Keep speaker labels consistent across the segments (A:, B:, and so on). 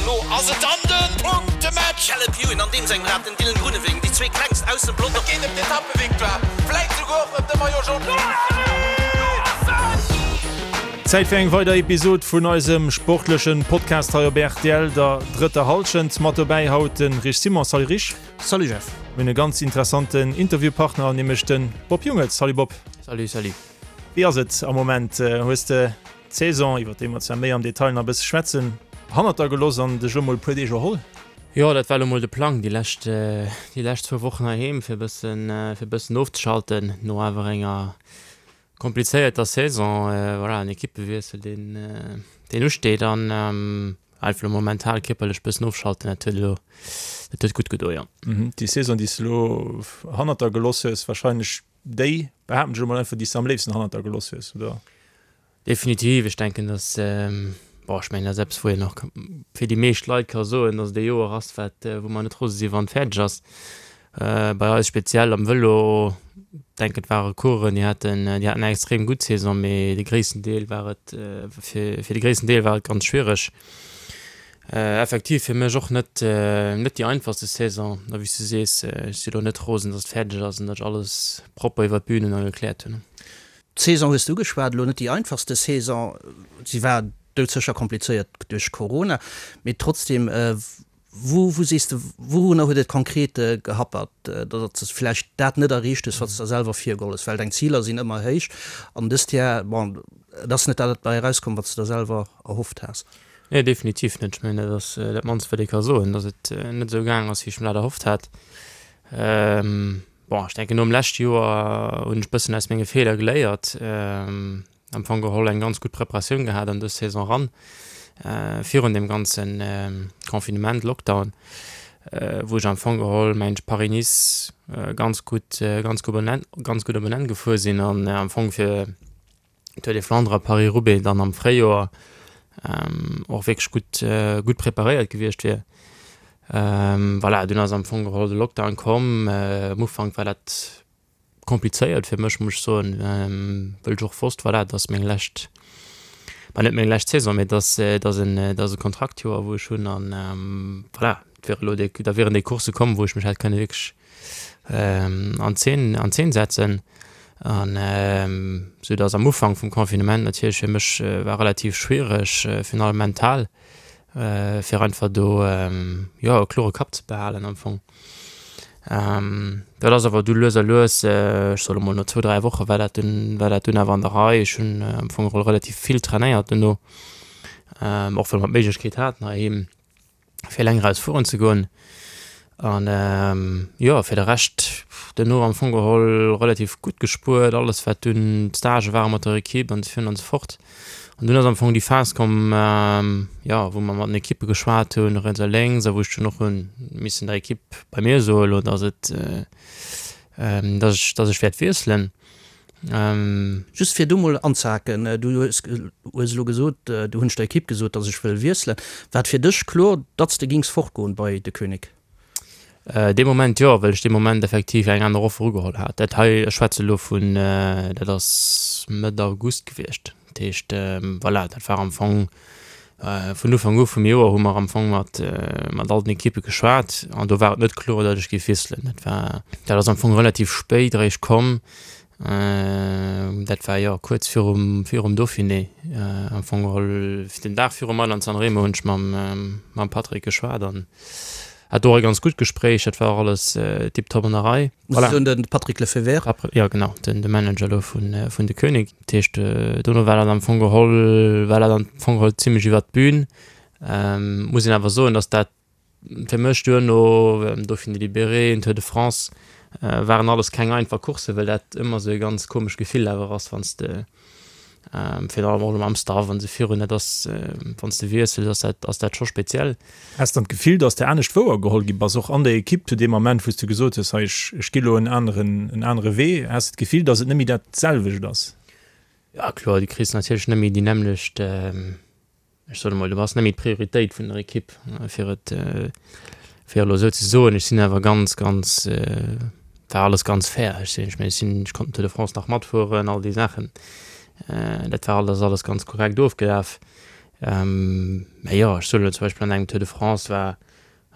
A: Elo ass et dann de Punktematch!
B: Caleb Ewan an deem sengem Rad, den Dylan Groenewegen, déi zwee klengst aus dem Pelotong.
A: Et geet ëm d'Etappevictoire, vläit souguer och ëm de Maillot Jaune.
C: Zäit fir eng weider Episod vun eisem sportlechen Podcast hei op rtl, der drëtter Hallschent. Mat dobäi haut de Rich Simon. Salut Rich.
D: Salut Jeff.
C: Mir hunn e ganz interessanten Interviewpartner, nämlech de Bob Jungels. Salut Bob.
D: Salut, salut.
C: Wéi ass et am Moment? Hues de d'Saison, iwwer déi mer zwar méi am Detail nach e bësse schwätzen, hannert der gelooss an dech elo mol e puer Deeg erholl?
D: Jo, dat war elo mol de Plang, déi lescht, déi lescht zwou Wochen heiheem, fir e bëssen, fir e bëssen ofzeschalten no awer enger komplizéierter Saison. Voilà, en Equippewiessel, deen, deen usteet an einfach elo mol mental, kierperlech e bëssen ofschalten, dat huet elo, dat huet gutt gedo, jo.
C: Déi Saison, déi s de elo hannert der gelooss hues, warscheinlech déi, behaapten ech elo mol einfach, déi s de am léifsten hannert der gelooss hues, oder?
D: Definitiv, ech denken, dass, bon, ech mengen, dat ass eppes, wou een och fir déi meescht Leit ka soen, dass et e Joer ass, wat, wou mer net rose si wann et fäerdeg ass. Bei eis speziell am Vëlo, denken, et ware Coureuren, déi haten, déi haten eng extrem gutt Saison, mee de gréissten Deel war et, fir, fir de gréissten Deel war et ganz schwiereg. Effektiv fir mech och net, net déi einfachste Saison. A wéi s du sees, ech si elo net rosen, dass et fäerdeg ass an datt ech alles propper iwwer d'Bün hunn a gekläert hunn.
E: D'Saison hues de ugeschwat, elo net déi einfachste Saison, si war doudsécher komplizéiert duerch Corona, mee trotzdem, wou wou sees de, wourunner huet et konkret gehappert, datt s de vläicht dat net erreecht hues, wat s de der selwer virgeholl hues? Well deng Ziler sinn ëmmer héich an dëst Jar, bon, et ass net dat bei erauskomm, wat s de der selwer erhofft has.
D: Nee, definitiv net. Ech mengen, dat ass dat mannst, wat ee ka soen, datt et net esou gaang ass, wéi ech mer dat erhofft hat. Bon, ech denken nom leschte Joer hunn ech bëssen aus menge Feeler geléiert. Am Fong geholl eng ganz gutt Preparatioun gehat an dës Saison eran, virun deem ganze Confinement, Lockdown, wou ech am Fong geholl mengen ech Paris-Nice ganz gutt, ganz gutt op en Enn, ganz gutt op en Enn gefuer sinn an am Fong fir Tour des Flandres a Paris-Roubaix dann am Fréijoer och wierklech gutt, gutt preparéiert gewiescht wier. Voilà, dunn ass am Fong geholl de Lockdown komm. Am Ufank war dat komplizéiert fir mech, muss ech soen, wëll ech och wosst, voilà, et ass meng lescht, bah net meng lescht Saison, mee et ass, et ass en, et ass e Kontraktjoer, wou ech hunn an voilà, et wier elo déi, da wieren déi Coursse komm, wou ech mech hätt kënne wierklech an Zeen, an Zeen setzen. An esou datt am Ufank vum Confinement natierlech fir mech war relativ schwiereg, virun allem mental, fir einfach do jo e klore Kapp ze behalen am Fong. Dat ass awer du lues a lues, ech soe lo mol no zwou, 3 Woche war dat dunn, war dat dunn awer an der Rei. Ech hunn am Fong geholl relativ vill trainéiert duerno, och well mer d'Méiglechkeet haten heiheem. fir eleng eraus fueren ze goen. An jo, fir de Rescht duerno am Fong geholl relativ gutt gespuert, alles wat dunn d'Stagë ware mat der Ekipp an esou virun an esou fort. An dunn ass am Fong déi Phas komm, jo, wou mer mat den Ekippe geschwat hunn, riets a lénks, a wou ech dunn och hu missen der Ekipp bei mir soen elo, datt et, datt ech, datt ech wäert wiesselen.
E: Just fir do mol anzehaken, du hues elo gesot, du hunn ech der Ekipp gesot, datt ech wëll wiesselen. War et fir dech kloer, datt s de gings fortgoen bei De Koenig?
D: Dee Moment jo, well ech dee Moment effektiv eng aner Offer ugeholl hat. Dat hei, ech schwätze elo vun, dat ass Mëtt August gewiescht. Dat heescht, voilà, dat war am Fong Vun Ufank u vum Joer hu mer am Fong mat mat all den Ekippe geschwat an do war et net kloer, datt ech géif wiesselen. Dat war, dat ass am Fong relativ spéit eréischt komm. Dat war jo kuerz virum virum Dauphiné am Fong geholl. Den Dag virum Mailand-San Remo hunn ech mam mam Patrick geschwat an hat do och e ganz gutt Gespréich. Dat war och alles tiptop an der Rei.
E: Muss ech soen, de Patrick Lefevere.
D: Jo genau, den de Manager elo vun vun De Koenig. Dat heescht, dono war dat am Fong geholl, war dat am Fong geholl zimlech iwwert d'Bün. Muss een awer soen, datt dat fir mech duerno, Dauphiné Libéré, den Tour de France, waren alles keng einfach Courssen, well dat ëmmer esou e ganz komescht Gefill awer ass, wann s de Virun allem och elo mam Staff an esou virun, dat ass, wann s de wiessels, ass dat, ass dat scho speziell.
C: Has dann d'Gefill, dass de anescht wouergeholl gi bass, och an der Ekipp zu deem Ament, wou s de gesot hues, hei, ech, ech gi lo en aneren, en anere Wee? Has de d'Gefill, dass et net méi dat selwecht ass?
D: Jo, kloer, du kriss natierlech net méi déi nämmlecht, ech soen emol, du bass net méi d'Prioritéit vun der Ekipp, fir et, fir elo esou ze soen. Ech sinn awer ganz, ganz, war alles ganz fair. Ech sinn, ech mengen, ech sinn, ech konnt den Tour de France nach matfueren, all déi Saachen. Dat war alles, alles ganz korrekt ofgelaf. Mä jo, ech soen elo zum Beispill an engem Tour de France war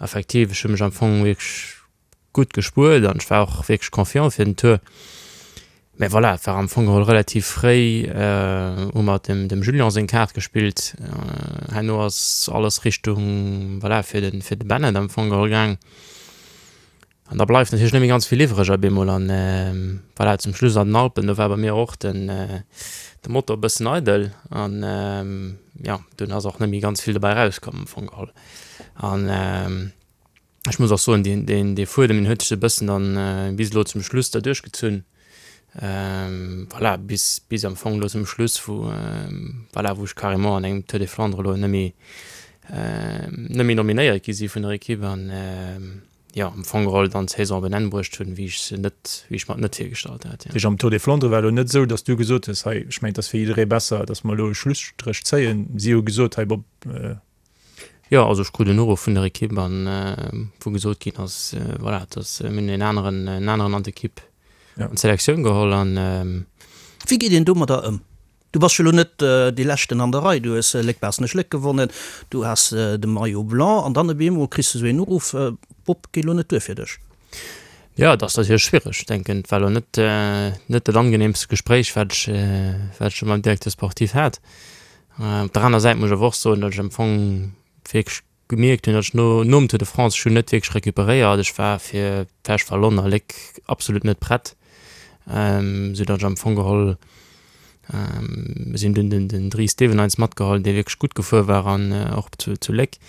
D: effektiv, ech hu mech am Fong wierklech gutt gespuert an ech war och wierklech confiant fir den Tour. Mä voilà, et war am Fong geholl relativ fréi, hu mer dem dem Julien seng Kaart gespillt. Herno ass alles Richtung, voilà, fir de fir de Bennett am Fong geholl gaang. An da bleift natierlech net méi ganz vill iwwreg op eemol. An voilà, zum Schluss an den Alpen, do war bei mir och den de Motor e bëssen eidel an jo, dunn ass och net méi ganz vill dobäi erauskomm am Fong geholl. An Ech muss och soen, deen, deen, dee Fuedem, deen huet sech e bëssen dann bis elo zum Schluss da duerchgezunn. Voilà, bis, bis am Fong elo zum Schluss, wou, voilà, wou ech carrément an engem Tour des Flandres elo net méi, net méi nominéiert gi si vun der Ekipp an, jo, am Fong geholl dann d'Saison op en Enn bruecht hunn, wéi ech se net, wéi ech mer et net virgestallt hat, jo.
C: Dat heescht, am Tour des Flandres war elo net esou, datt du gesot hues, hei, ech mengen, et ass fir jidderee besser, datt mer elo e Schlusstréch zéien. Si hu gesot, hei Bob,
D: Jo, also ech krut en Uruff vun der Ekipp an wou gesot ginn ass, voilà, dass mir hunn en aneren, en aneren an d'Ekipp, an d'Selektioun geholl an.
E: Wéi geet een domadder ëm? Du bass jo elo net dee Leschten an der Rei, du hues Léck-Baaschtnech-Léck gewonnen, du has de Maillot blanc an dann op eemol kriss de sou een Uruff, Bob, geet elo net duer fir dech.
D: Jo, et ass natierlech schwiereg. Ech denken, et war elo net, net dat angenehmst Gespréich, wat ech, wat ech scho mam Directeur sportif hat. Op der aner Säit muss ech awer och soen, datt ech am Fong wierklech gemierkt hunn, datt ech no nom Tour de France, ech hunn net wierklech recuperéiert. Ech war fir d'Flèche Wallonne a Léck absolut net prett, esou datt ech am Fong geholl, mir sinn dunn den den Dries Devenyns matgeholl, dee wierklech gutt gefuer war an och zu zu Léck,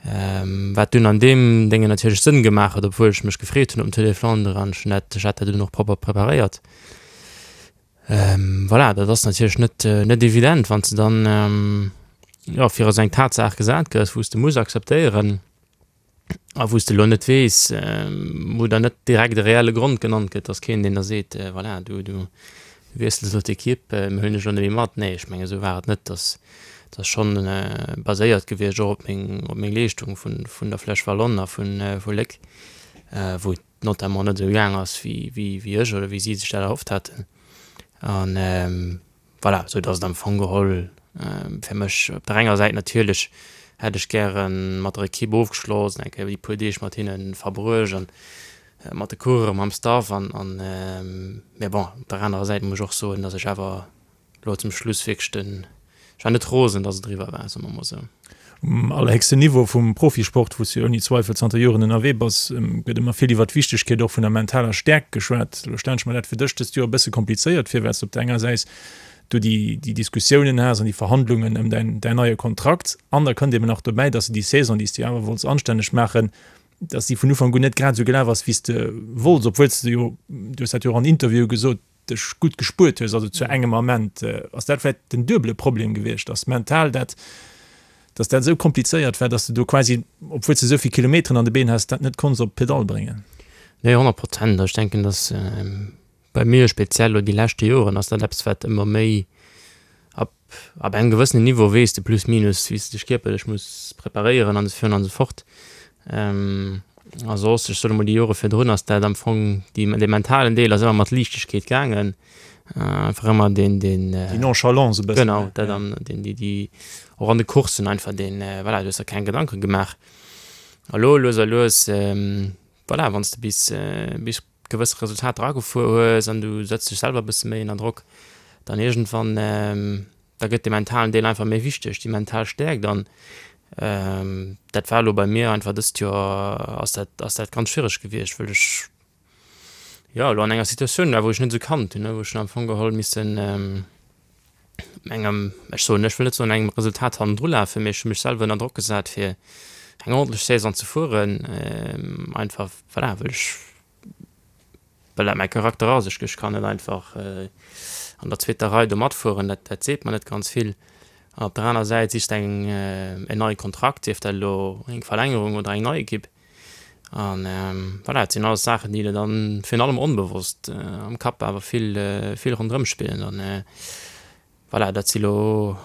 D: wat dunn an deem Déngen natierlech Sënn gemaach huet, obwuel ech mech gefreet hunn op den Tour des Flandres an ech hunn dat, ech hat dat dunn och propper preparéiert. Voilà, dat ass natierlech net, net evident, wann s de dann, jo, virun esou eng Tatsaach gesat gëss, wou s de muss akzeptéieren a wou s de elo net weess, wou der net direkt e reelle Grond genannt gëtt, dass keen, deen der seet, voilà, du, du wiessels elo d'Ekipp, mir huelen dech elo net méi mat. Nee, ech mengen, esou war et net. Dat ass schonn baséiert gewiescht och op meng, op meng Leeschtung vun, vun der Flèche Wallonne a vun, vu Léck, wou et notamment net esou gaang ass wéi wéi ech oder wéi si sech dat erhofft haten an voilà, sou datt et am Fong geholl fir mech op der enger Säit natierlech hätt ech gäre mat der Ekipp ofgeschloss an eng Kéier déi puer Deeg mat hinne verbruecht an mat de Coureuren, mam Staff an an mä bon op der anerer Säit muss ech och soen, datt ech awer Lo zum Schluss wierklech den, ech war net rosen, dass et eriwwer war, soe mer mol esou.
C: Um allerhéchsten Niveau vum Profisport, wou s du jo ouni Zweifel zanter Joren ënnerwee bass, gëtt ëmmer vill iwwer d'Wichtegkeet och vun der mentaler Stäerkt geschwat. Elo stellen ech mer dat fir dech dëst Joer e bësse komplizéiert vir, well s de op der enger Säis do déi déi Diskussiounen has an déi Verhandlungen ëm däin däin neie Kontrakt an da kënnt eben nach dobäi, dass de déi Saison, déi s de jo awer wollts anstänneg maachen, dass déi vun Ufank un net grad esou gelaf ass, wéi s de wollts, obwuel s de jo, du hues dat jo och an Interviewe gesot, dech gutt gespuert hues, also zu engem Ament, ass dat vläicht den duebele Problem gewiescht, dass mental dat, dass dat esou komplizéiert war, dass de do quasi, obwuel s de esou vill Kilometeren an de Been has, dat net konns op d'Pedall bréngen?
D: Nee, 100 Prozent. Ech denken, dass bei mir speziell elo déi leschte Joren ass dat eppes, wat ëmmer méi ab ab engem gewëssenen Niveau weess de plus minus, wéi s de dech kierperlech muss preparéieren an esou virun an esou fort. A soss, ech soen emol, déi Jore virdrun ass dat am Fong, déi, dee mentalen Deel ass ëmmer mat Liichtegkeet gaangen, einfach ëmmer deen, deen.
C: Déi Nonchalance e bëssen.
D: Genau, dat an deen, déi, déi och an de Courssen einfach deen, voilà, du hues der keng Gedanke gemaach. A lo lues a lues, voilà, wann s de bis, bis gewësse Resultater agefuer hues an du setz dech selwer e bësse méi ënner Drock, dann iergendwann, da gëtt de mentalen Deel einfach méi wichteg, déi mental Stäerkt an dat war elo bei mir einfach dëst Joer ass dat, ass dat ganz schwiereg gewiescht, wëll ech jo elo an enger Situatioun war, wou ech net esou kannt hunn, wou ech hunn am Fong geholl missen engem, ech soen, ech wëll net soen engem Resultat hannendru lafen, mee ech hu mech selwer ënner Drock gesat fir eng ordentlech Saison ze fueren, einfach voilà, wëll ech, well dat mäi Charakter ass. Ech ech kann net einfach an der zweeter Rei do matfueren, dat dat seet mer net ganz vill. An op der aner Säit sichs de eng en neie Kontrakt, sief dat elo eng Verlängerung oder eng nei Ekipp. An voilà, dat sinn alles Saachen, déi der dann virun allem onbewosst am Kapp awer vill, vill ronderëm spillen. An voilà, dat si lo,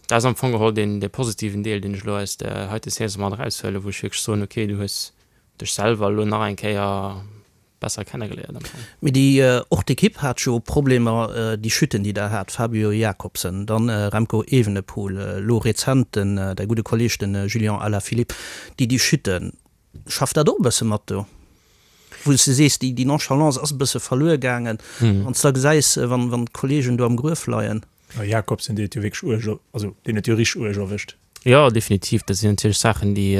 D: dat ass am Fong geholl deen, dee positiven Deel, deen ech elo aus där heite Saison mat eraushuelen, wou ech wierklech soen, okay, du hues dech selwer elo nach eng Kéier. besser kennegeléiert am
E: Fong. Mee déi, och d'Ekipp hat jo Problemer, déi Chutten déi der hat, Fabio Jakobsen, dann Remco Evenepoel, elo rezent den, däi gudde Kolleg den Julian Alaphilippe, déi déi Chutten, schafft dat och e bësse mat do? Wou s de sees, déi Nonchalance ass e bësse verluer gaangen, wann s da gesäis, wann d'Kollegen do am Gruef leien.
C: Jakobsen, deen huet jo wierklech uerg, also deen huet jo richteg uerg erwëscht.
D: Jo, definitiv, dat sinn natierlech Saachen, déi,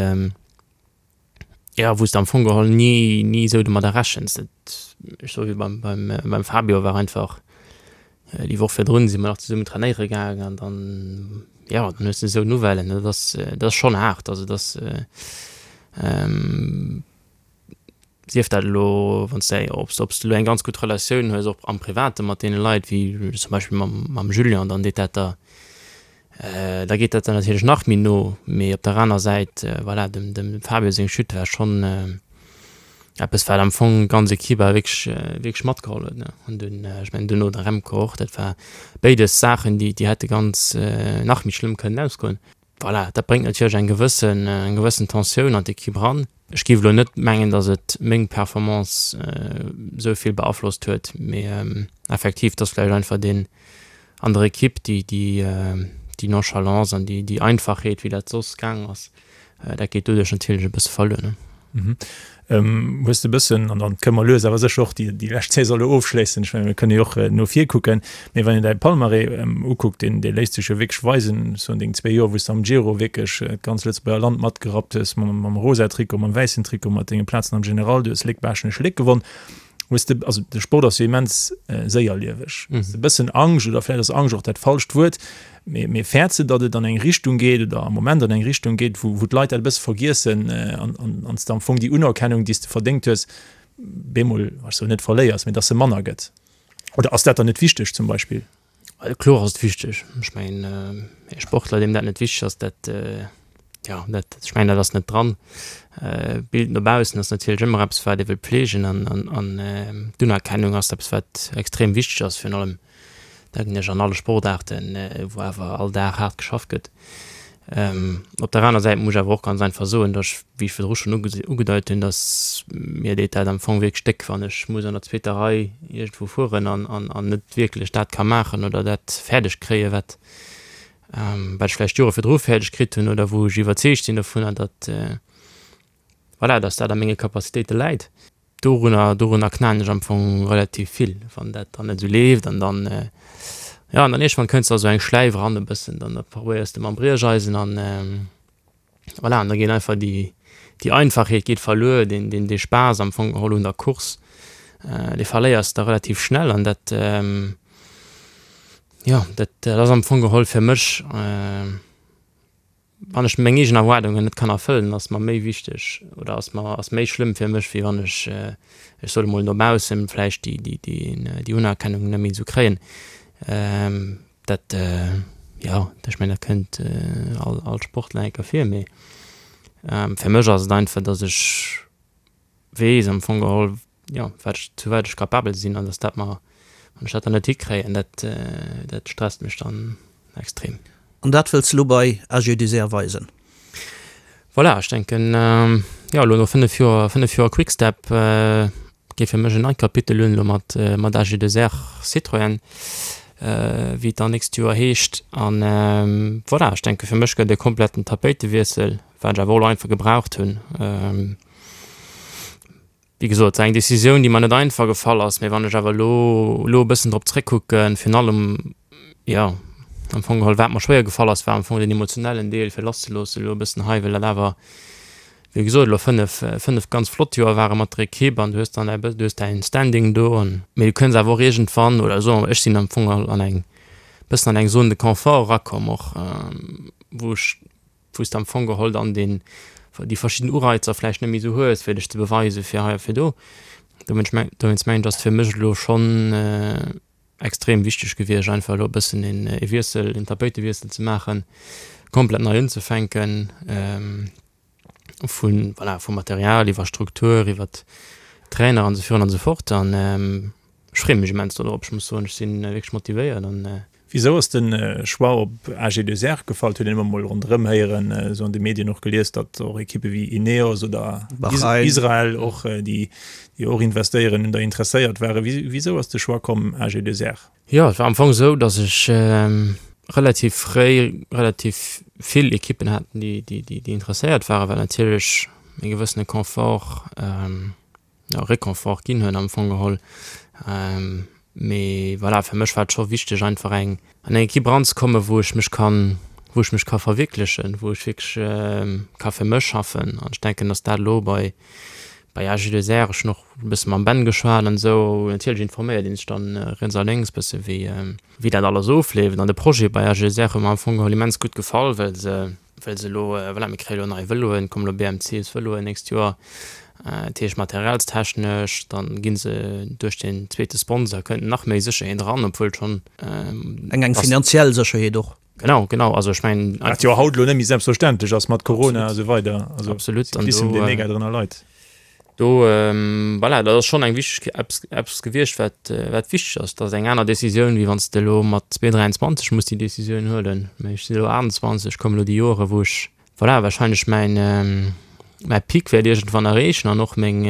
D: jo, wou s de am Fong geholl ni, ni esou domadder rechens. Dat, ech soe wéi beim, beim, beim Fabio war einfach, déi Woch virdrun si mer nach zesummen trainéiere gaangen an dann, jo, dann hues de esou Nouvellen, dat ass, dat ass schonn haart. Also dat ass, sief dat elo, wann s de, ob s, ob s de elo eng ganz gutt Relatioun hues och am Private mat deene Leit, wéi zum Beispill mam, mam Julien, dann deet dat der, da geet dat der natierlech nach méi no. Mee op der aner Säit, voilà, dem, dem Fabio seng Chute war schonn eppes, wat am Fong d'ganz Ekipp awer wierklech, wierklech matgeholl huet, ne. An dunn, ech mengen duerno de Remco och, dat war béides Saachen, déi, déi hätte ganz nach méi schlëmm kënnen ausgoen. Voilà, dat bréngt natierlech eng gewëssen, eng gewëssen Tensioun an d'Ekipp eran. Ech géif elo net mengen, datt et meng Performance esou vill beaflosst huet, mee effektiv, et ass vläicht einfach deen an der Ekipp, déi, déi, déi Nonchalance an déi, déi Einfachheet, wéi dat soss gaang ass, dat geet doduerch natierlech e bësse verluer, ne.
C: Hues de e bëssen, an dann kënne mer lues awer sécher och déi, déi lescht Saison elo ofschléissen, ech menge mir kënne jo och no vir kucken, mee wann een däi Palmarès ukuckt, deen, dee léisst sech jo wierklech weisen, ech soen deng zwee Joer, wou s de am Giro wierklech d'ganz Lëtzebuerger Land matgerappt hues, mam, mam rosa Trikot, mam wäissen Trikot, mat denge Plazen am General, du hues Léck-Baaschtnech-Léck gewonn. Hues de, also de Sport ass jo immens séierlieweg, hues de e bëssen Angscht, oder vläicht ass Angscht och dat falscht Wuert, mee, mee fäerts de, datt et an eng Richtung geet oder am Moment an eng Richtung geet, wou, wou d'Leit dat e bësse vergiessen an, an, an s de am Fong déi Unerkennung, déi s de verdéngt hues, bemol, ech soen net verléiers, mee datt se manner gëtt? Oder ass dat dann net wichteg zum Beispill?
D: Kloer ass et wichteg. Ech mengen, e Sportler, deem dat net wichteg ass, dat, jo, dat, ech mengen, dat ass net dran. D'Bild no baussen ass natierlech ëmmer eppes, wat ee wëll pfleegen an, an, an d'Unerkennung ass eppes, wat extrem wichteg ass, virun allem, denken ech, an alle Sportaarten, wou awer all Dag haart geschafft gëtt. Op der aner Säit muss ech awer och ganz einfach soen, datt ech, wéi ech virdru schonn ugedeit hunn, datt mir deet dat am Fong wierklech déck, wann ech muss an der zweeter Rei iergendwou fueren an an net wierklech dat ka maachen oder dat fäerdeg kréien, wat wat ech vläicht Jore virdru fäerdeg kritt hunn oder wou ech iwwerzeegt sinn dovunner, datt voilà, datt dat a menge Capacitéite läit. Dorunner, dorunner knaen ech am Fong relativ vill, wann dat dann net esou leeft an dann, jo, an dann iergendwann kënns de a sou eng Schläif eran e bëssen, dann probéiers de mam Briecheisen an voilà, an da geet einfach déi, déi Einfachheet geet verluer, deen, deen, dee Spaass am Fong geholl un der Course, dee verléiers de relativ schnell an dat, jo, dat, dat ass am Fong geholl fir mech, Wann ech meng eegen Erwaardungen net kann erfëllen, ass mer méi wichteg oder ass mer ass méi schlëmm fir mech, wéi wann ech, ech soe mol no baussen vläicht déi déi déi déi Unerkennung net méi esou kréien. Dat jo, ech mengen dat kënnt all all Sportler eng Kéier vir, mee fir mech ass et einfach, datt ech weess am Fong geholl, jo, wat ech, zu wat ech capabel sinn an dass dat mer, wann ech dat dann net hikréien, dat, dat stresst mech dann extrem.
E: An dat wëlls de lo bei AG2R weisen?
D: Voilà, ech denken, jo, elo no 5 Joer, 5 Joer Quick-Step geet fir mech en neit Kapitel un, elo mat, mat AG2R Citroën, wéi et dann nächst Joer heescht. An voilà, ech denke fir mech gëtt e kompletten Tapéitewiessel, wat ech awer och elo einfach gebraucht hunn. Wéi gesot, et war eng Decisioun, déi mer net einfach gefall ass, mee wann ech awer elo elo e bëssen drop zréckkucken, virun allem, jo, am Fong geholl, wat mer schwéier gefall ass, war am Fong den emotionellen Deel, fir lasszeloossen elo e bëssen hei, well dat awer, wéi gesot, elo fënnef, fënnef ganz flott Joer ware mat der Ekipp an du hues dann däi, du hues däin Standing do an, mee du kënns awer och iergendwann, oder soe mer, ech sinn am Fong geholl an eng, bëssen an eng Zone de confort erakomm och, wou ech wou s de am Fong geholl dann deen, déi verschidden Ureizer vläicht net méi esou hues, fir dech ze beweisen, fir hei a fir do. Dowéinst meng, dowéinst mengen ech, ass et fir mech elo schonn extrem wichteg gewiescht, einfach elo e bëssen een ee Wiessel, een Tapéitewiessel ze maachen, komplett nei unzefänken, vun, voilà, vum Material iwwer Struktur, iwwer Trainer an esou virun an esou fort. An ech freeë mech immens dodrop. Ech muss soen, ech si wierklech motivéiert an.
C: Wisou ass de Choix op AG2R gefall? Et huet een ëmmer mol ronderëm héieren, esou an de Medien och gelies, datt och Ekippe wéi Ineos oder Israel och, déi och investéieren, un der interesséiert waren. Wisou ass de Choix komm AG2R?
D: Jo, et war am Fong esou, datt ech relativ fréi relativ vill Ekippen hat, déi interesséiert waren, wat natierlech e gewëssene Confort, jo, Réconfort ginn huet am Fong geholl. Mee voilà, fir mech war et scho wichteg einfach eng an eng Ekipp eranzekommen, wou ech mech kann, wou ech mech ka verwierklechen, wou ech wierklech ka fir mech schaffen. An ech denken, datt dat elo bei bei AG2R, ech hunn och e bësse mam Ben geschwat an esou, natierlech informéiert ee sech dann riets a lénks bësse wéi wéi dat alles ofleeft. An de Projet bei AG2R huet mer am Fong geholl immens gutt gefall, well se well se elo, voilà, mir kréie elo nei Vëloen, kommen elo BMCs-Vëloen nächst Joer, dat heescht materialstechnesch, dann gi se duerch den zweete Sponsor kënnt nach méi Sécherheet eran, obwuel schonn.
E: Eng eng finanziell Sécherheet och.
D: Genau, genau, also ech mengen.
C: Wat jo haut elo net méi selbstverständlech ass mat Corona a sou weider.
D: Also Absolut.
C: Cyclissem, dee mega drënner leit.
D: Do, voilà, dat ass schonn eng wichteg, eppes, eppes gewiescht, wat, wat wichteg ass. Dat ass eng aner Decisioun, wéi wann s de elo mat 23 muss déi Decisioun huelen. Mä ech sinn elo 28, kommen elo déi Joere wou ech, voilà, wahrscheinlech mäin, mäi Pic wäert iergendwann erreechen an och meng,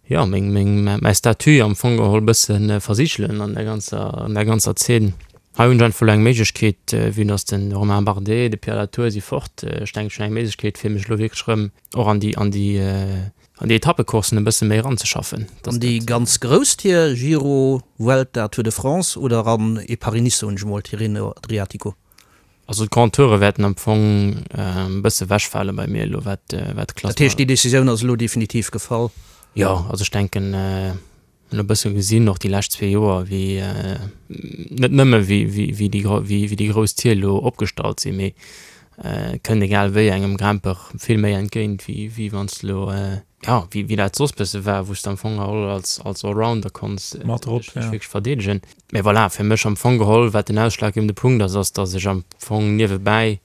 D: jo, meng, meng, mäi Statut am Fong geholl bësse versigelen an der ganzer, an der ganzer Zeen. Hei hunn ech einfach elo eng Méiglechkeet, vue dass de Romain Bardet, de Pierre Latour si fort, ech denken, ech hunn eng Méiglechkeet, fir mech elo wierklech erëm och an déi, an déi, an déi Etappecoursen e bësse méi eranzeschaffen.
E: An déi ganz grouss Tier, Giro, Vuelta, Tour de France oder an ee Paris-Nice, soen ech emol, Tirreno Adriatico?
D: Also d'Grand Toure wäerten am Fong e bësse wechfale bei mir elo, wat, wat de
E: Klassement. Dat heescht, déi Decisioun ass elo definitiv gefall?
D: Jo, also ech denken, Hunn e bësse gesinn, och déi lescht zwee Joer, wéi net nëmme wéi déi grouss Tier elo opgestallt sinn, mee et kënnt egal wéi engem Grimpeur vill méi entgéint, wéi wann s de elo, jo, wéi dat soss bësse war, wou s de am Fong geholl als Allrounder konns dech wierklech verdeedegen. Mee voilà, fir mech am Fong geholl, wat den ausschlaggebende Punkt ass, ass, datt ech am Fong niewebäi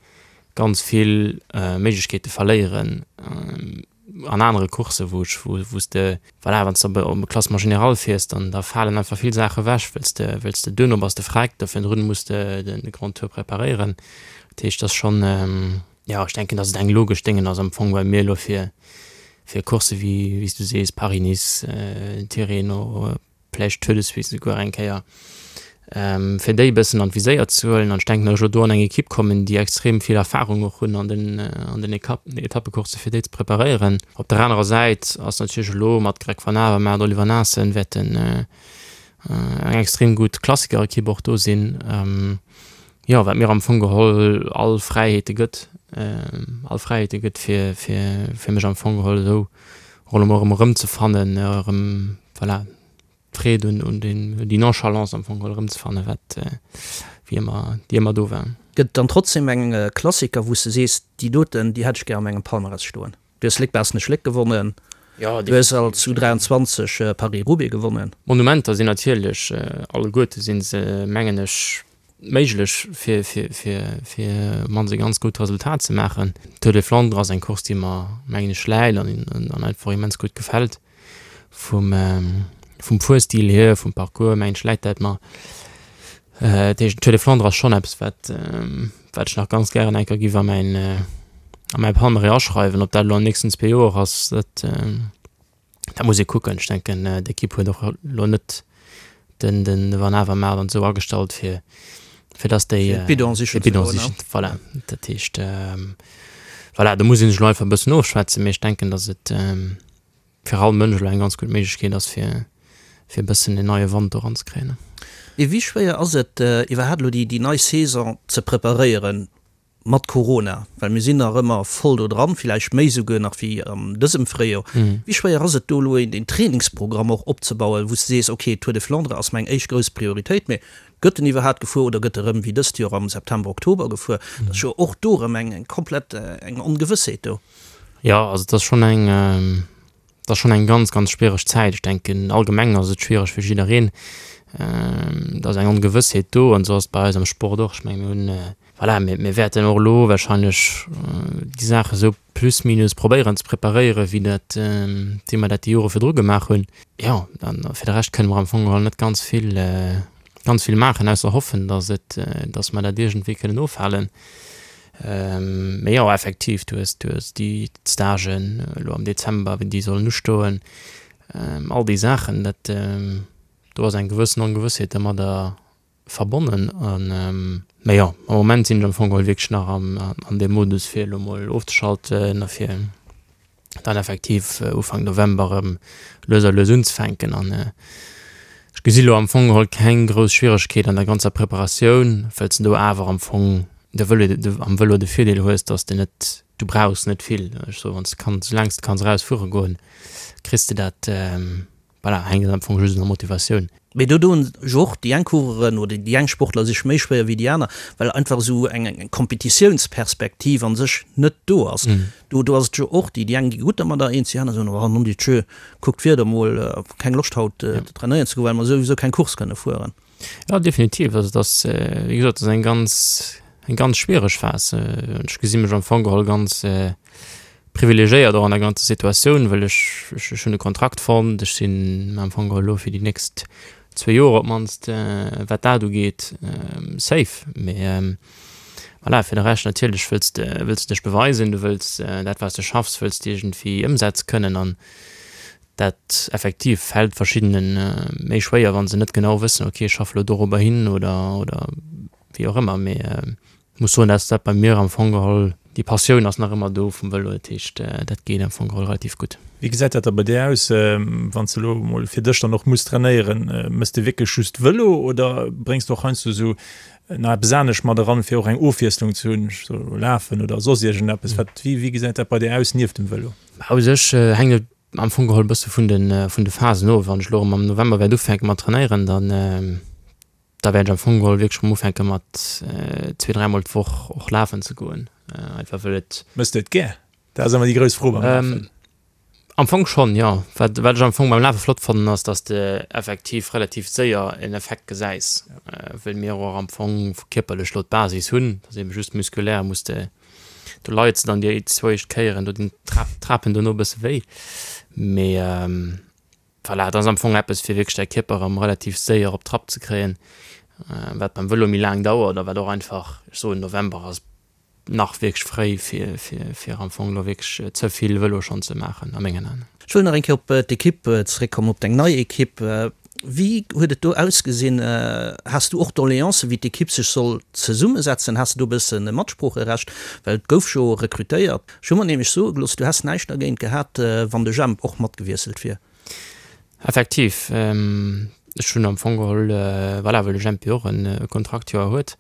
D: ganz vill Méiglechkeete verléieren. An anere Courssen, wou ech, wou, wou s de, voilà, wann s de op e Classement général fiers, dann da falen einfach vill Saache ewech, wëlls de, wëlls de duerno bass de vreckt, da virdrun muss de de Grand Tour preparéieren. Dat heescht, dat ass schonn, jo, ech denken, datt et eng logesch Déngen ass am Fong bei mir elo fir, fir Coursse wéi, wéi s du sees, Paris-Nice, Tirreno, vläicht Tour de Suisse esouguer eng Kéier, fir déi e bëssen an d'Viséier ze huelen. An ech denken, datt ech elo do an eng Ekipp kommen, déi extrem vill Erfarung och hunn an den, an den Etappecoursse fir déi ze preparéieren. Op der anerer Säit ass natierlech elo mat Greg Van Avermaet, Oliver Naesen wäerten eng extrem gutt Klassikerekipp och do sinn, jo, wat mir am Fong geholl all Fräiheete gëtt, all Fräiheete gëtt, fir, fir, fir mech am Fong geholl esou och elo mol erëm erëmzefannen, erëm, voilà, d'Freed un, un den, déi Nonchalance am Fong geholl erëmzefannen, wat, wéi ëmmer, déi ëmmer do war.
E: Gëtt et dann trotzdem eng Klassiker, wou s de sees, déi doten, déi hätt ech gär a mengem Palmarès stoen? Du hues Léck-Baaschtnech-Léck gewonnen, du hues als U23 Paris-Roubaix gewonnen.
D: Monumenter sinn natierlech alleguerte si se, mengen ech, méiglech fir fir fir fir mannst e ganz gutt Resultat ze maachen. Tour des Flandres ass eng Course déi mer mengen ech läit an an einfach immens gutt gefält vum vum Fuerstil hier, vum Parcours mengen ech läit dat mer. Dat heescht den Tour des Flandres ass schonn eppes wat wat ech nach ganz gären eng Kéier giff a mäin a mäi Palmarès aschreiwen. Ob dat elo an den nächsten zwee Joer ass dat Dat muss ee kucken. Ech denken, d'Ekipp huet och elo net den, den Van Avermaet an esou agestallt, fir, fir datt déi.
E: Fir d'Bidon sichen
D: ze goen, ne? Voilà. Dat heescht, voilà, do muss ee sech elo einfach e bëssen ofschwätzen, mee ech denken, datt et fir all Mënsch elo eng ganz gutt Méiglechkeet ass, fir, fir e bëssen en neie Wand do eranzekréien.
E: Mee wéi schwéier ass et iwwerhaapt elo déi, déi nei Saison ze preparéieren? Mat Corona, well mir sinn nach ëmmer voll do dran, villäicht méi souguer nach wéi an dësem Fréijoer. Wéi schwéier ass et do elo een Trainingsprogramm och opzebauen, wou s de sees, ok, Tour de Flandre ass meng éischt grouss Prioritéit, mee gëtt en iwwerhaapt gefuer oder gëtt e rëm wéi dëst Joer am September, Oktober gefuer? Dat ass jo och do erëm eng komplett eng Ongewëssheet do.
D: Jo, also et ass schonn eng, Et ass schonn eng ganz, ganz schwiereg Zäit. Ech denken, allgemeng ass et schwiereg fir jiddereen. Et ass eng Ongewëssheet do an esou ass et bei eis am Sport och. Ech mengen, mir hunn, voilà, mir, mir wäerten och elo warscheinlech déi Saache esou plus minus probéieren ze preparéieren, wéi dat, wéi mer dat déi Jore virdru gemaach hunn. Jo, an fir de Rescht kënne mer am Fong geholl net ganz vill. ganz vill maachen, ausser hoffen, dass et, dass mer dat iergendwéi kënnen ofhalen. Mee jo, effektiv, du hues, du hues déi Stagen elo am Dezember, wéi déi sollen ustoen, all déi Saachen, dat, do ass eng gewëssen Ongewëssheet domadder verbonnen. An, mee jo, am Moment sinn ech am Fong geholl wierklech nach am, an deem Modus, fir elo mol ofzeschalten a fir dann effektiv Ufank November erëm lues a lues unzefänken. An ech gesi lo am Fong geholl keng grouss Schwieregkeet an der ganzer Preparatioun, wëll s de do awer am Fong de Vëlo, am Vëlo de Virdeel hues, dass de net, du brauchs net vill. Ech soe wann s de kanns, soulaang s de kanns eraus fuere goen, kriss de dat. Voilà, hänkt am Fong just un der Motivatioun.
E: Mee do doen jo och déi eng Coureuren oder déi eng Sportler sech méi schwéier wéi déi aner, well einfach esou eng Kompetitiounsperspektiv an sech net do ass. Do do ass et jo och, déi déi eng gi gutt dermadder eens, déi aner soen, oh non Dieu, kuck d'Wieder mol, keng Loscht haut trainéieren ze goen, well mer souwisou keng Course kënne fueren.
D: Jo, definitiv. Also et ass, wéi gesot, et ass eng ganz, eng ganz schwiereg Phas. Ech gesi mech am Fong geholl ganz privilegiéiert och an der ganzer Situatioun, well ech, ech hunn e Kontrakt fonnt, ech sinn am Fong geholl elo fir déi nächst zwee Joer op d'mannst, wat dat ugeet, safe. Mee voilà, fir de Rescht natierlech wëlls de, wëlls de dech beweisen, du wëlls dat wat s de schaffs, wëlls de iergendwéi ëmsetze kënnen an dat effektiv fält verschiddene méi schwéier, wa se net genau wëssen, okay ech schaffe elo dorobber hin oder, oder wéi och ëmmer. Mee Muss soen dass dat bei mir am Fong geholl, déi Passioun ass nach ëmmer do vum Vëlo, dat heescht dat geet am Fong geholl relativ gutt.
C: Wéi gesäit dat da bei dir aus, wann s de elo mol fir dech dann och muss trainéieren? Mëss de wierklech just Vëlo oder bréngs de och heiansdo esou nach eppes anescht mat eran, fir och eng Ofwiesslung ze hunn, sou lafen oder soss iergendeppes? Wat, wéi wéi gesäit dat bei dir aus nieft dem Vëlo?
D: Bah u sech hänkt et am Fong geholl e bësse vun de vun de Phasen of. Wann ech elo erëm am November wäert ufänke mat trainéieren, dann Da wäert ech am Fong geholl wierklech erëm ufänke mat zwee, dräimol d'Woch och lafen ze goen, einfach wëll et.
C: Mëss de et gär? Dat ass ëmmer déi grouss Fro beim Lafen.
D: Am Fong schonn, jo. Wat wat ech am Fong beim Lafe flott fannen, ass, dass de effektiv relativ séier en Effekt gesäis, wëll mir och am Fong kierperlech lo d'Basis hunn, dass ebe just muskulär muss de, do leits de dann déi zwou éischt Kéieren, do dinn d'Trapen dono e bësse wéi, mee. Voilà, et ass am Fong eppes fir wierklech däi Kierper erëm relativ séier op Trapp ze kréien, wat beim Vëlo méi laang dauert a wat och einfach, ech soen November ass nach wierklech fréi fir fir fir am Fong elo wierklech ze vill Vëlo schonn ze maachen a mengen Aen.
E: Ech wëll nach eng Kéier op d'Ekipp zeréckkommen, op deng nei Ekipp. Wéi huet et do ausgesinn? Has du och Doleancen, wéi d'Ekipp sech soll zesummesetzen? Has de do e bësse Matsproocherecht? Well et gouf jo rekrutéiert. Ech hu mer nämlech soe gelooss, du häss näischt dergéint gehat, wann de Jemp och matgewiesselt wier.
D: Effektiv, ech hunn am Fong geholl, voilà, well de Jemp jo och e Kontraktjoer huet,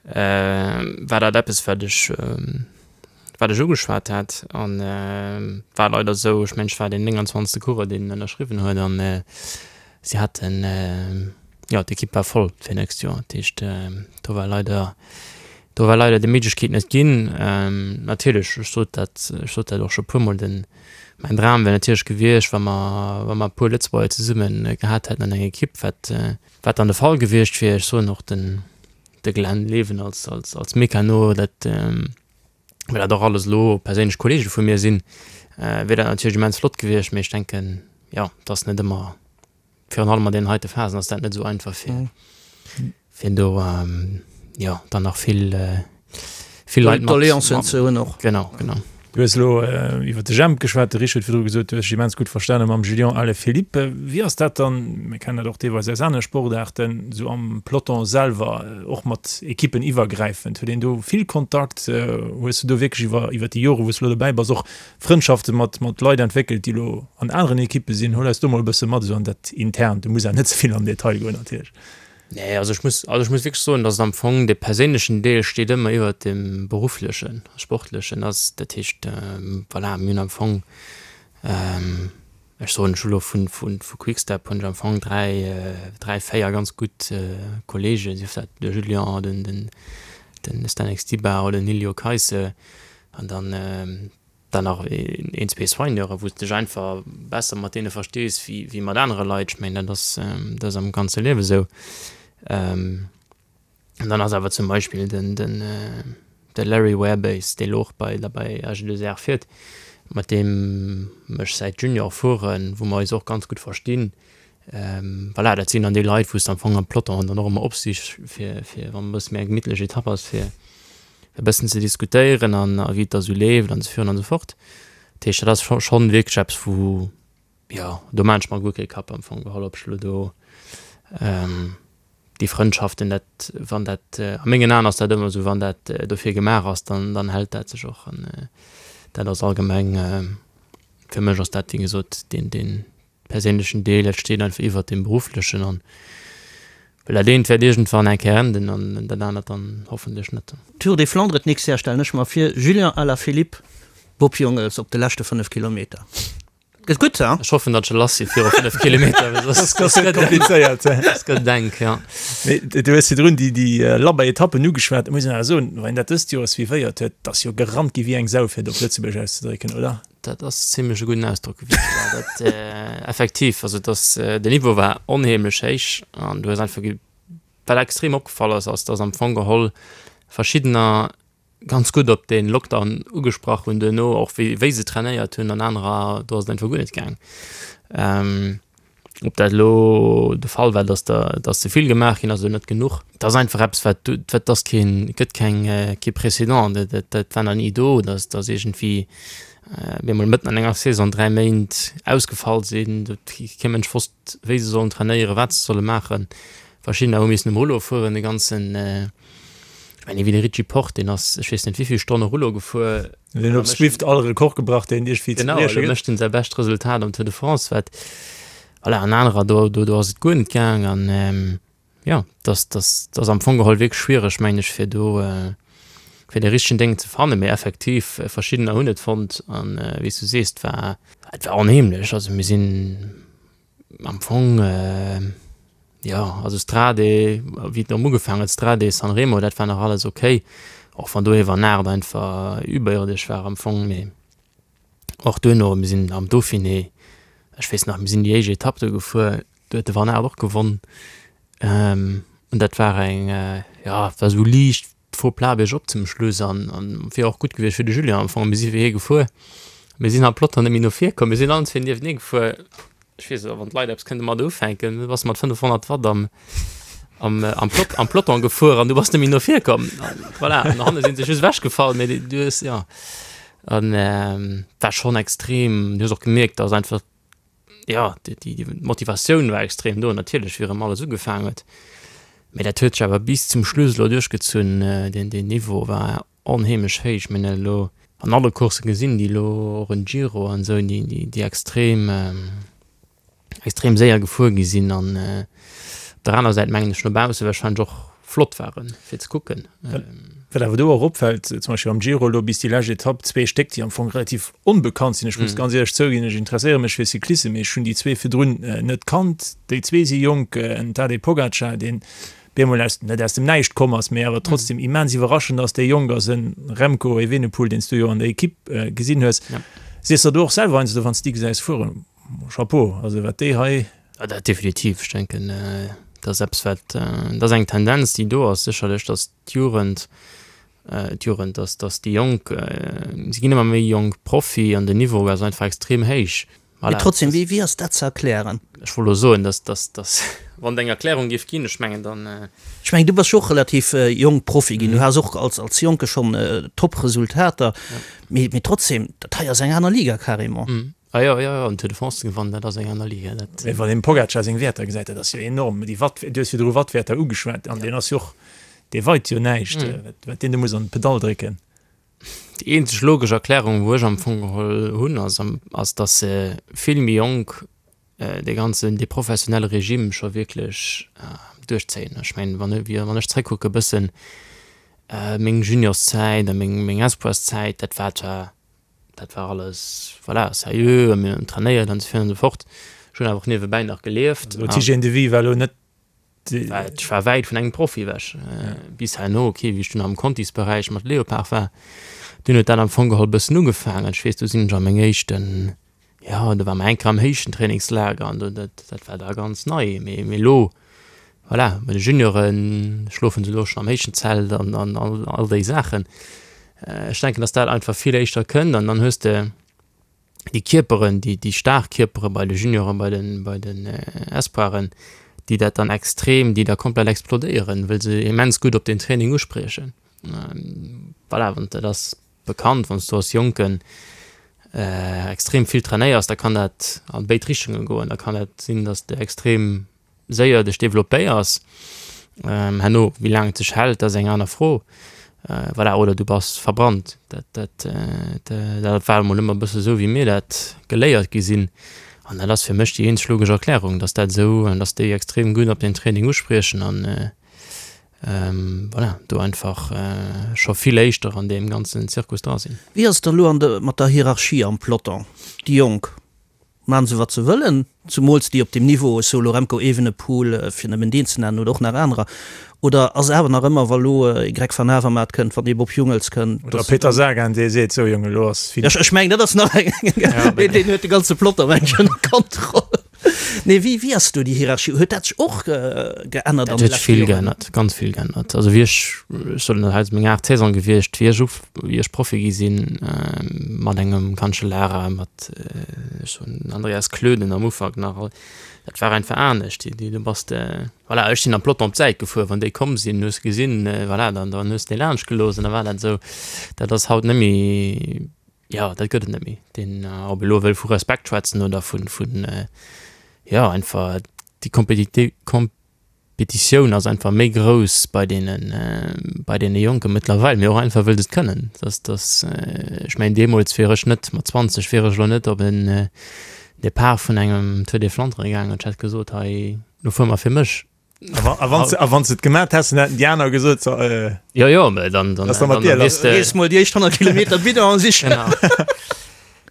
D: war dat eppes, wat ech, wat ech ugeschwat hat. An war leider esou, ech mengen, ech war deen 29. Coureur, deen ënnerschriwwen huet an si haten, jo, d'Ekipp war voll fir nächst Joer. Dat heescht, do war leider Do war leider déi Méiglechkeet net ginn. Natierlech, ech sot dat, ech sot dat och scho puermol, den, mäin Dram wär natierlech gewiescht, wa mer, wa mer e puer Lëtzebuerger zesumme gehat hätten an enger Ekipp, wat, wat dann de Fall gewiescht wier. Ech soen och den, de Glenn Leven als, als, als Mecano, dat, well dat och alles elo perséinlech Kollege vu mir sinn, wier dat natierlech immens flott gewiescht. Mee ech denken, jo, et ass net ëmmer Virun allem an deenen heite Phasen ass dat net esou einfach fir fir do jo dann nach vill vill Leit mat
E: Doleancen ze hunn och.
D: Genau, genau.
C: Du hues elo iwwer de Jemp geschwat, de Rich huet virdru gesot, du hues dech immens gutt verstane mam Julian Alaphilippe. Wéi ass dat dann, mir kennen dat och deelweis aus anere Sportaarten, esou am Peloton selwer, och mat Ekippen iwwergräifend? Huet een do vill Kontakt? Hues du do wierklech iwwer iwwer déi Jore wou s du elo dobäi bass och Frëndschafte mat mat Leit entwéckelt, déi elo an aneren Ekippe sinn. Hol eis do mol e bësse mat esou an dat Internt. Du muss awer net ze vill am Detail goen natierlech.
D: Nee, also ech muss, also ech muss wierklech soen, datt am Fong de perséinlechen Deel steet ëmmer iwwert dem berufflechen, sportlechen ass. Dat heescht, voilà, mir hunn am Fong, ech soen, ech hu lo vun vun vu Quick-Step hunn ech am Fong 3, 3, 4 ganz gutt Kolleegen, sief dat de Julien, den den den Zdenek Stybar oder den Iljo Keisse, An dann dann nach een, zwee Soigneuren, wou s de dech einfach besser mat deene verstees wéi wéi mat anere Leit. Ech mengen, dat ass dat ass am ganze Liewe sou. An dann ass awer zum Beispill den den de Larry Werbase, dee lo och bei der bei AG2R fiert, mat deem ech säit Junior fueren, wou mer eis och ganz gutt verstinn. Voilà, dat sinn dann déi Leit, wou s de am Fong am Peloton dann och ëmmer opsichs, fir, fir wann e bësse méi eng gemittlech Etapp ass, fir e bëssen ze diskutéieren an a wéi et da sou leeft an esou virun an esou fort. Dat heescht, dat ass scho schonn wierklech eppes, wou, jo, do maan ech mer guer kee Kapp am Fong geholl, ob ech elo do déi Frëndschaften, dat, wann dat, a mengen Aen ass dat ëmmer esou, wann dat dofir gemaach ass, dann, dann hält dat sech och an dat ass allgemeng, fir mech ass dat, wéi gesot, deen, deen perséinlechen Deel, dat steet einfach iwwert deem berufflechen an well dat eent wäert iergendwann eng Kéier enden an dat anert dann hoffentlech net.
E: Tour des Flandres d'nächst Jahr stellen ech mer vir, Julian Alaphilippe, Bob Jungels op de leschte 5 Kilometer. Gëtt gutt, ha?
D: Ech hoffen, datt se lass si viru 5 Kilometer, well soss
C: Soss gëtt et komplizéiert.
D: Soss gëtt et enk, ja.
C: Mee du hues virdrun déi, déi labber Etappen ugeschwat. Et muss een awer soen, wann een dat dëst Joer suivéiert huet, 't ass jo gerannt gi wéi eng Sau, fir et op Lëtzebuerg auszedrécken, oder?
D: Dat ass zimlech e gudden Ausdrock gewiescht, ja. Dat, effektiv, also et ass, den Niveau war onheemlech héich an du hues einfach ge-, wat extrem opgefall ass, ass, dass am Fong geholl verschiddener ganz gutt op dee Lockdown ugesprach hunn duerno, och wéi, wéi se trainéiert hunn an anerer, do ass et einfach guer net gaang. Ob dat elo de Fall war, dass der, dass ze vill gemaach ginn ass oder net genuch, dat ass einfach eppes, wat du, wat ass keen, et gëtt keng, kee Précédent, dat, dat, dat war nach ni do, dass, dass iergendwéi mir emol mëtten an enger Saison 3 Méint ausgefall sinn, do huet kee Mënsch wosst, wéi se sollen trainéieren, wat se solle maachen. Verschiddener hu missen um Rouleau fueren, de ganzen, ech mengen, wéi de Richie Porte, deen ass, ech weess net wéi vill Stonne Rouleau gefuer.
C: Deen huet op Zwift all Rekord gebrach, deen iergendwéi
D: ze brieche gëtt. Genau, elo mécht en säi bescht Resultat am Tour de France, wat, voilà, an anerer, do, do, do ass et guer net gaang. An jo, dass, dass, dass am Fong geholl wierklech schwiereg, mengen ech, fir do, fir dee richtegen Déng ze fannen. Mee effektiv, verschiddener hunn et fonnt an, wéi s du sees, et war, et war onheemlech. Also mir sinn am Fong, jo, also Strade, wéi et erëm ugefaangen huet, Strade, San Remo, dat war nach alles ok, och wann do ee Van Aert einfach überirdesch war am Fong, mee och duerno, mir sinn am Dauphiné, ech weess nach, mir sinn déi éischt Etapp do gefuer, do huet de Van Aert och gewonn, an dat war eng, jo, et war esou liicht Faux plat biergop zum Schluss an an wier och gutt gewiescht fir de Julien am Fong. Mir si fir hie gefuer, mir sinn am Peloton net méi no vir komm, mir sinn allen zwee nieftenee gefuer. Ech weess net, wann d'Leit eppes kënnte mat ufänken, du bass mat 500 Watt am am am Plot am Peloton gefuer an du bass net méi no vir komm. An voilà, an hanne sinn se just ewechgefall, mee du hues jo an war schonn extrem. Du hues och gemierkt, dass einfach jo, déi Motivatioun war extrem do natierlech, wéi erëm alles ugefaangen huet. Mee dat huet sech awer bis zum Schluss elo duerchgezunn. Deen, deen Niveau war onheemlech héich. Mir hunn dat elo an alle Coursse gesinn, déi elo och en Giro an esou, déi, déi, déi extrem, extrem séier gefuer gi sinn an op der aner Säit mengen ech no bausse warscheinlech och flott waren, fir ze kucken.
C: Wat awer do och opfält, zum Beispill am Giro elo bis déi lescht Etapp, zwee Stéck, déi am Fong relativ onbekannt sinn. Ech muss ganz éierlech zouginn, ech interesséiere mech fir Cyclissem, mee ech hunn déi zwee virdrun net kannt. Déi zwee si jonk, en Tadej Pogacar, deen bemol aus, net aus dem Näischt komm ass, mee awer trotzdem immens iwwerraschend ass, dee jonk ass, en Remco Evenepoel, deen s du jo an der Ekipp gesinn hues. Sees der do och selwer heiansdo, wann s de déi gesäis fueren, Chapeau, also wat déi hei.
D: Jo, dat definitiv. Ech denken, dat ass eppes, wat, dat ass eng Tendenz, déi do ass sécherlech, datt d'Jugend, d'Jugend, datt, datt déi Jonk, se ginn ëmmer méi jonk Profi an den Niveau ass einfach extrem héich.
E: Mee trotzdem, wéi, wéi ass dat ze erklären?
D: Ech wollt elo soen, datt, datt, datt, wann et eng Erklärung géif ginn, ech mengen, dann.
E: Ech mengen, du bass jo och relativ jonk Profi ginn, du has och als, als Jonke schonn Top-Resultater, mee, mee trotzdem, dat hei ass eng aner Liga carrément.
D: Ah jo, jo, jo, den Tour de France ze gewannen, dat ass eng aner Liga. Dat.
C: Mee wann een dem Pogacar seng Wäerter gesäit, dat ass jo enorm. Déi Watt, du hues virdru Wattwäerter ugeschwat, an deen ass jo och, dee weit jo näischt, wat deen do muss an d'Pedall drécken.
D: Déi eenzeg logesch Erklärung, wou ech am Fong geholl hunn, ass, ass datt se vill méi jonk dee ganzen, dee professionelle Regime scho wierklech duerchzéien. Ech mengen, wann, wann ech zréckkucke bëssen, meng Juniorszäit a meng, meng Espoirszäit, dat war zwar Dat war alles, voilà, sérieux a mir hunn trainéiert an esou virun an esou fort. Ech hunn awer och niewebäi nach gelieft.
C: Also d'Hygiène de vie war elo net
D: déi. Ech war wäit vun engem Profi ewech. Bis herno, ok, wéi ech dunn am Contisberäich mat Leopard war, dunn huet dat am Fong geholl e bëssen ugefaangen. Ech weess, do sinn ech a meng éischten, jo, do war mer eng Kéier am héichten Trainingslager an do, dat, dat war da ganz nei. Mee, mee elo Voilà, bei de Juniore schlofen se elo schonn am héijen Zelt an an all déi Saachen. Ech denken, datt dat einfach vill éischter kënnt an dann hues de. Déi Kierperen, déi, déi staark Kierpere bei de Junioren, bei den, bei den Espoiren, déi dat dann extrem, déi da komplett explodéieren, wëll se immens gutt op den Training uspriechen. Voilà, wann dat ass bekannt, wann s du als Jonken extrem vill trainéiers, da kann dat an béid Richtungen goen. Da kann dat sinn, dass de extrem séier dech developpéiers. Herno, wéi laang et sech hält, dat ass eng aner Fro. Voilà, oder du bass verbrannt. Dat, dat, dat war emol ëmmer e bësse sou, wéi mir dat geléiert gi sinn. An dat ass fir mech déi eenzeg logesch Erklärung, dass dat esou, dass déi extrem gutt op den Training uspriechen an voilà, do einfach scho vill éischter an deem ganzen Zirkus dra sinn.
E: Wéi ass et da lo an de, mat der Hierarchie am Peloton? Déi Jonk, Maachen se wat se wëllen, zumools déi op deem Niveau, ech soe lo Remco Evenepoel, fir nëmmen deen ze nennen, oder och nach anerer, oder ass awer nach ëmmer, wa lo ee Greg van Avermaet kënnt, wann ee Bob Jungels kënnt,
C: Oder dass. Peter Sagan, dee seet, sou Jongen, elo ass
E: fini. Ech mengen, dat ass nach eng, deen deen huet de ganze Peloton, meng ech, ënner Kontroll. Nee, wéi wéi ass do déi Hierarchie? Huet dat sech och geännert
D: an de leschte Joren? Dat huet sech vill geännert, ganz vill geännert. Also wéi ech, ech soen, dat hei ass meng aacht Saison gewiescht, wéi ech uf, wéi ech Profi gi sinn, mat engem Cancellara, mat, ech soen, Andreas Klöden am Ufank nach, dat war einfach anescht. Déi, déi, du bass de, voilà, ech sinn am Peloton op d'Säit gefuer, wann déi komm sinn, hues de gesinn, voilà, dann, dann hues de déi laanscht gelooss an da war dat esou. Dat ass haut net méi. Jo, dat gëtt et net méi. Deen, ob elo wëll vu Respekt schwätzen oder vun, vun, jo, einfach déi Kompetiti-, Kompetitioun ass einfach méi grouss bei deenen, bei deene Jonke mëttlerweil, mee och einfach wëll se et kënnen. Dass, dass, ech mengen deemools wier ech net, mat 20 wier ech elo net op en Depart vun engem Tour des Flandres gaangen an ech hätt gesot, hei, lo fuere mer fir mech.
C: A wann a wann se et gemat häss, dann hätten déi aner gesot, so, äh,
D: Jo, jo, mä dann, dann,
C: Was da mat dir lass?
E: Rees mol déi éischt 100 Kilometer Bidon sichen.
D: Genau.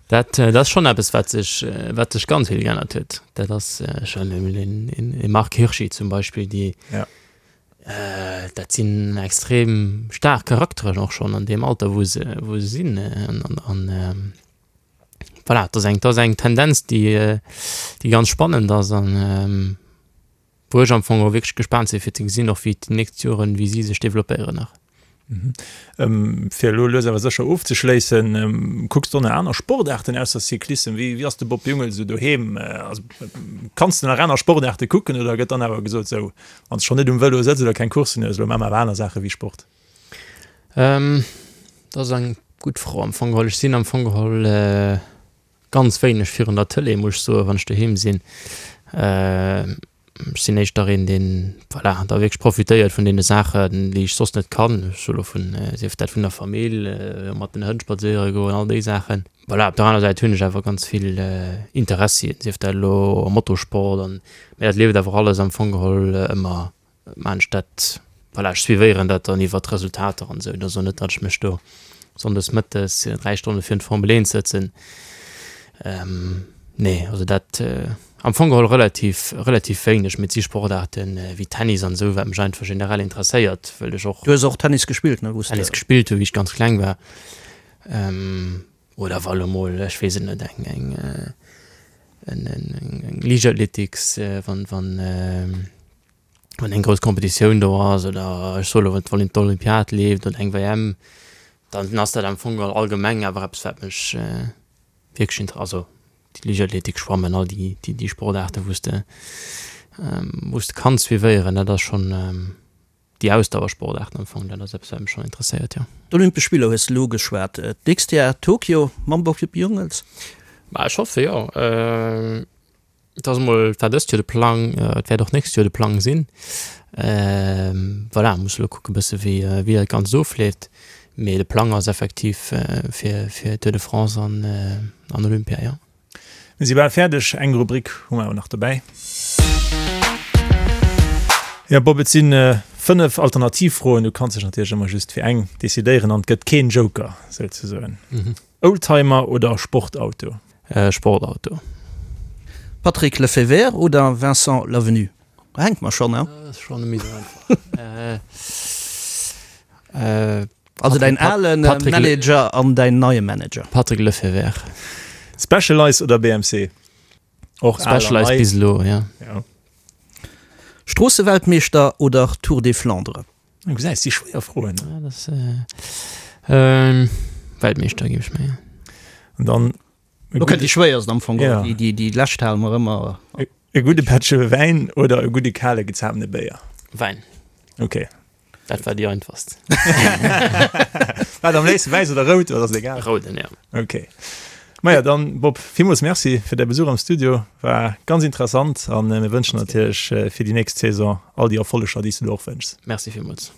D: Dat, dat ass schonn eppes, wat sech, wat sech ganz vill geännert huet. Dat ass schonn emol een, een, ee Marc Hirschi zum Beispill, déi,
C: Ja.
D: äh, dat sinn extrem staark Charakteren och schonn an deem Alter, wou se, wou se sinn. An, an, an voilà, dat ass eng, dat ass eng Tendenz, déi, déi ganz spannend ass an, Wou ech am Fong och wierklech gespaant sinn, fir ze gesinn och wéi déi nächst Joren, wéi si sech developpéieren nach.
C: Fir elo lues awer sécher ofzeschléissen, kucks de och nach aner Sportaarten ausser Cyclissem? Wéi ass de Bob Jungels esou doheem? Also kanns de nach aner Sportaarte kucken oder gëtt dann awer gesot, sou wann s de schonn net um Vëlo sëtz oder keng Courssen hues, elo maache mer awer aner Saache wéi Sport?
D: Dat ass eng gutt Fro am Fong geholl. Ech sinn am Fong geholl Ganz wéineg virun der Tëlee, muss ech soen, wann ech doheem sinn. Ech sinn éischter een, deen, voilà, da wierklech profitéiert vun deene Saachen, déi ech soss net kann. Ech soe lo vun, sief dat vun der Famill, mat den Hënn spadséiere goen, all déi Saachen. Voilà, op der aner Säit hunn ech awer ganz vill Interessien, sief dat elo am Motorsport an, mä dat leeft awer alles am Fong geholl ëmmer Maan ech dat, voilà, ech suivéieren dat dann iwwert d'Resultater an esou. Et ass och net, datt ech mech do sonndes mëttes 3 Stonne virun d'Formel 1 sëtzen. Nee, also dat am Fong geholl relativ, relativ wéineg. Mee et si Sportaarten wéi Tennis an esou, wat mech einfach generell interesséiert, wëll ech och.
E: Du hues och Tennis gespillt, ne, wou s de.
D: Tennis gespillt hu wéi ech ganz kleng war. Oder wa lo mol, ech weess et net, eng, eng, eng, eng Liichtathletiks, wann, wann, wann eng grouss Competitioun do ass oder ech soe lo, wann d'Olympiad leeft oder eng WM, dann ass dat am Fong geholl allgemeng awer eppes, wat mech wierklech inter-, also déi Liichtathletik, Schwammen, all déi, déi, déi Sportaarten, wou s de, wou s de kanns suivéieren, dat ass schonn. Déi Ausdauersportaarten am Fong, dat ass eppes, wat mech schonn interesséiert, jo.
E: D'Olympesch Spiller hues de elo ugeschwat. D'nächst Jar Tokio mam Bob Jungels?
D: Ma ech hoffe jo. Et ass emol, et war dëst Joer de Plang, et wäert och d'nächst Joer de Plang sinn. Voilà, muss elo kucke bësse wéi, wéi dat Ganzt ofleeft. Mee de Plang ass effektiv fir, fir Tour de France an, an Olympia, jo.
C: Mir si bal fäerdeg, eng Rubrik hu mer awer nach dobäi. Jo Bob, et si 5 Alternativfroen, du kanns dech natierlech ëmmer just fir eng decidéieren an et gëtt keen Joker souzesoen. Oldtimer oder Sportauto?
D: Sportauto.
E: Patrick Lefevere oder Vincent Lavenu? Do hänke mer schonn, he?
D: Dat ass schonn net méi esou einfach.
E: Also däin ale Manager an däin neie Manager.
D: Patrick Lefevere.
C: Specialized oder BMC?
D: Och Specialized bis elo, ja.
C: Ja.
E: Stroosseweltmeeschter oder Tour des Flandres?
C: Du gesäis, si schwéier Froen.
D: Ja, das, äh, Weltmeeschter, géif ech mengen.
C: An dann.
E: Lo kënnt déi schwéierst am Fong, ja. Déi, déi lescht hale mer ëmmer.
C: E gudde Pättche Wäin oder e gudde kale gezapene Béier?
D: Wäin.
C: Ok.
D: Dat war déi einfachst.
C: Wat am léifsten, wäiss oder rout, oder ass et egal?
D: Rouden, ja.
C: Ok. Maja, dann Bob, villmools Merci fir däi Besuch am Studio. War ganz interessant an mir wënschen natierlech fir déi nächst Saison all déi Erfolleger, déi s du der och wënschs.
D: Merci villmools.